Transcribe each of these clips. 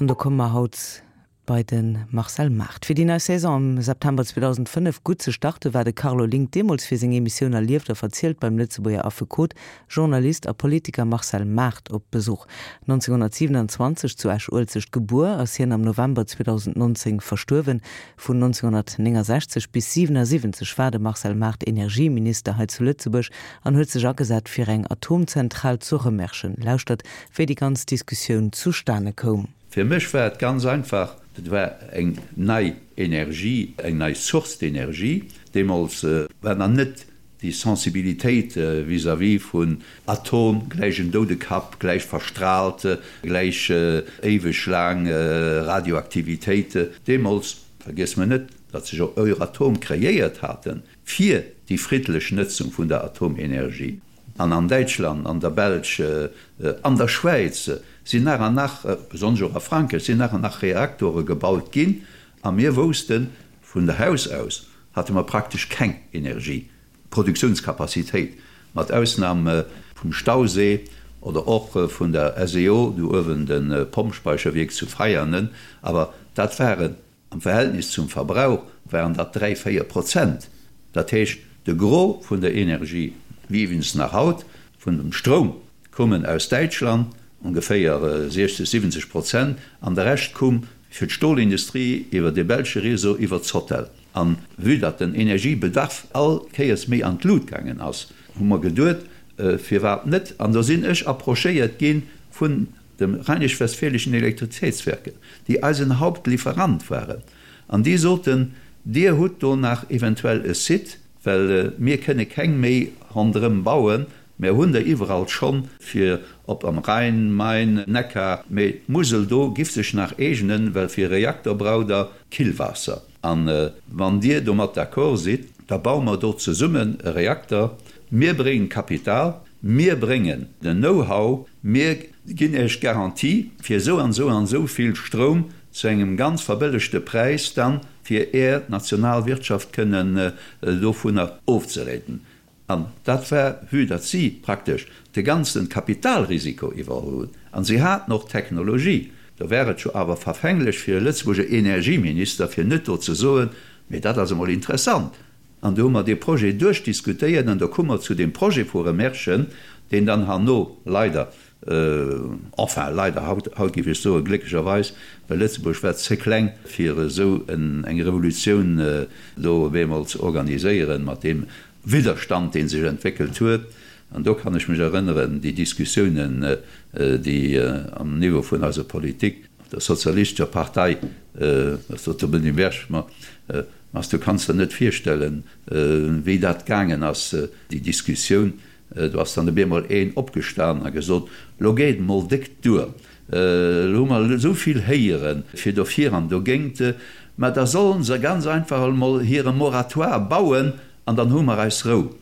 An do komme mer haut bei de Marcel Maart. Fir déi nei Saison am September 2005 gutt ze starte war de Carlo Link deemools fir seng Emissioun Erlieft a verzielt beim Lëtzebuerger Affekot, Journalist a Politiker Marcel Maart op Besuch. 1927 zu Esch-Uelzecht gebuer, ass hien am November 2019 verstuerwen. Vun 1969 bis 77 war de Marcel Maart Energieminister hei zu Lëtzebuerg an huet sech agesat fir eng Atomzentral zu Rëmerschen. Lauschtert, wéi déi ganz Diskussioun zustane koum. Fir mech war et ganz einfach, et war eng nei Energie, eng nei Source d'énergie. Deemools war nach net déi Sensibilitéit vis-à-vis vun Atom, gläich en Doudekapp, gläich verstrahlt, gläich éiweg laang Radioaktivitéit. Deemools, vergiesse mer net, datt sech och Euratom kreéiert haten fir déi friddlech Nëtzung vun der Atomenergie. An an Däitschland, an der Belsch, an der Schwäiz sinn nach an nach, besonnesch och a Frankräich, sinn nach an nach Reaktore gebaut ginn. A mir woussten, vun der Haus aus hate mer praktesch keng Energieproduktiounskapazitéit, mat Ausnam vum Stausee oder och vun der SEO, do uewen de Pompspeicherwierk zu Veianen. Awer dat waren Am Verhältnis zum Verbrauch waren dat 3, 4 Prozent. Dat heescht, de Gros vun der Energie, wéi iwwregens nach haut, vun dem Stroum, koumen aus Däitschland, ongeféier 60, 70 Prozent, an de Rescht koum fir d'Stolindustrie iwwer de belsche Réseau, iwwer d'Sotel. A vue datt den Energiebedarf all Kéiers méi an d'Lut gaangen ass, hu mer geduet, firwat net? An do sinn ech approchéiert gi vun dem Rheinisch-Westfälischen Elektrizitätswerke, déi eisen Hauptlieferant waren, an déi soten, Dir hutt do nach eventuell e Site, well mir kënne keng méi ronderëm bauen, mär hunn der iwwerall schonn, fir ob am Rhein, Main, Neckar, mee d'Musel do giff sech nach eegnen, well fir e Reaktor braucht Der Killwaasser. A wann Dir domat d'accord sidd, da baue mer do zesummen e Reakter, mir bréngen d'Kapital, mir bréngen den Know-how, Mir ginn Iech d'Garantie fir esou an esou an esou vill Stroum zu engem ganz verbëllegte Präis dann, fir Är national Wirtschaft kënnen dovunner ofzeréiten. An dat war, vue datt si praktesch de ganze Kapitalrisiko iwwerholl hunn, an si haten och d'Technologie, do war et jo awer verfänglech fir e Lëtzebuerger Energieminister, fir net do ze soen, Mee dat ass emol interessant, An do hu mer dee Projet duerchdiskutéiert an do koum mer zu deem Projet vu Remerschen, deen dann herno leider, enfin leider, haut, haut géif ech soen, glécklecherweis, well Lëtzebuerg war ze kleng, fir esou eng Revolutioun do op eemol ze organiséieren, mat deem Widderstand, dee sech entwéckelt huet. An do kann ech mech erënneren, déi Diskussiounen, déi am Niveau vun eiser Politik, der sozialistescher Partei, dat sot de Benny Berg, ma Mas du kanns der net virstellen, wéi dat gaangen ass, déi Diskussioun. Do ass dann op eemol een opgestan a gesot, Lo geet et mol déck duer, lo hu mer esou vill héiere fir dofir an dogéint, mä da sollen se ganz einfach emol hire Moratoire bauen an dann hu mer eis Rou.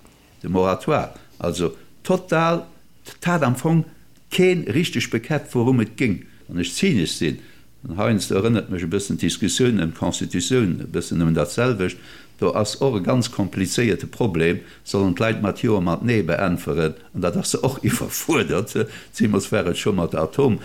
De Moratoire, also total, 't hat am Fong keen richteg bekäppt wourum et géng. Wann ech zynesch sinn, an heiansdo erënnert mech e bëssen d'Diskussioun ëm d'Constitutioun e bëssen ëm dat selwecht, do ass och e ganz komplizéierte Problem, sollen d'Leit mat Jo a mat Nee beäntweren, an dat ass se och iwwerfuerdert, zeemools war et scho mat der Atom,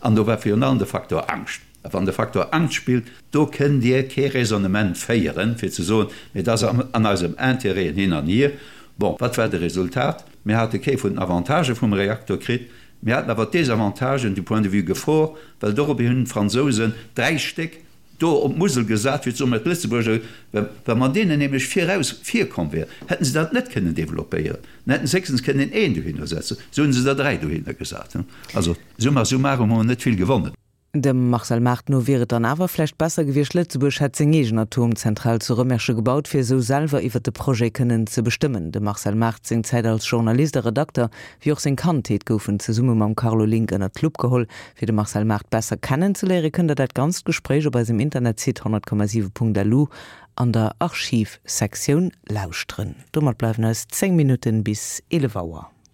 an do war virun allem de Faktor Angscht. A wann de Faktor Angscht spillt, do kënnt Dir kee Raisonnement féieren, fir ze soen, mee et ass an eisem Intérêt hin an hier. Bon, wat war de Resultat? Mir hate kee vun den Avantagë vum Reaktor kritt, mir haten awer d'Desavantagen du point de vue Gefor, well dorobber hunn d'Fransousen dräi Stéck do op d'Musel gesat, fir ze soen, mä d'Lëtzebuerger, wa mer deenen nämlech viraus virkomm wären, hätten se dat net kënnen développéieren, dann hätten se héchstens kënnen een dohinner setzen, esou hunn se der dräi dohinner gesat. Also summa summarum hu mer net vill gewonnen. Dem Marcel Maart no wier et dann awer vläicht besser gewiescht, Lëtzebuerg hätt seng eegen Atomzentral zu Rëmersche gebaut, fir esou selwer iwwer de Projet kënnen ze bestëmmen. Dem Marcel Maart seng Zäit als Journalist a Redakter, wéi och seng Kandheet goufen zesumme mam Carlo Link ënnert d'Lupp geholl. Fir de Marcel Maart besser kennen ze léiere kënnt der dat ganzt Gespréich op eisem Internetsite 100,7.lu an der Archivsektioun lauschteren. Domat bleiwen eis 10 Minutten bis 11 Auer.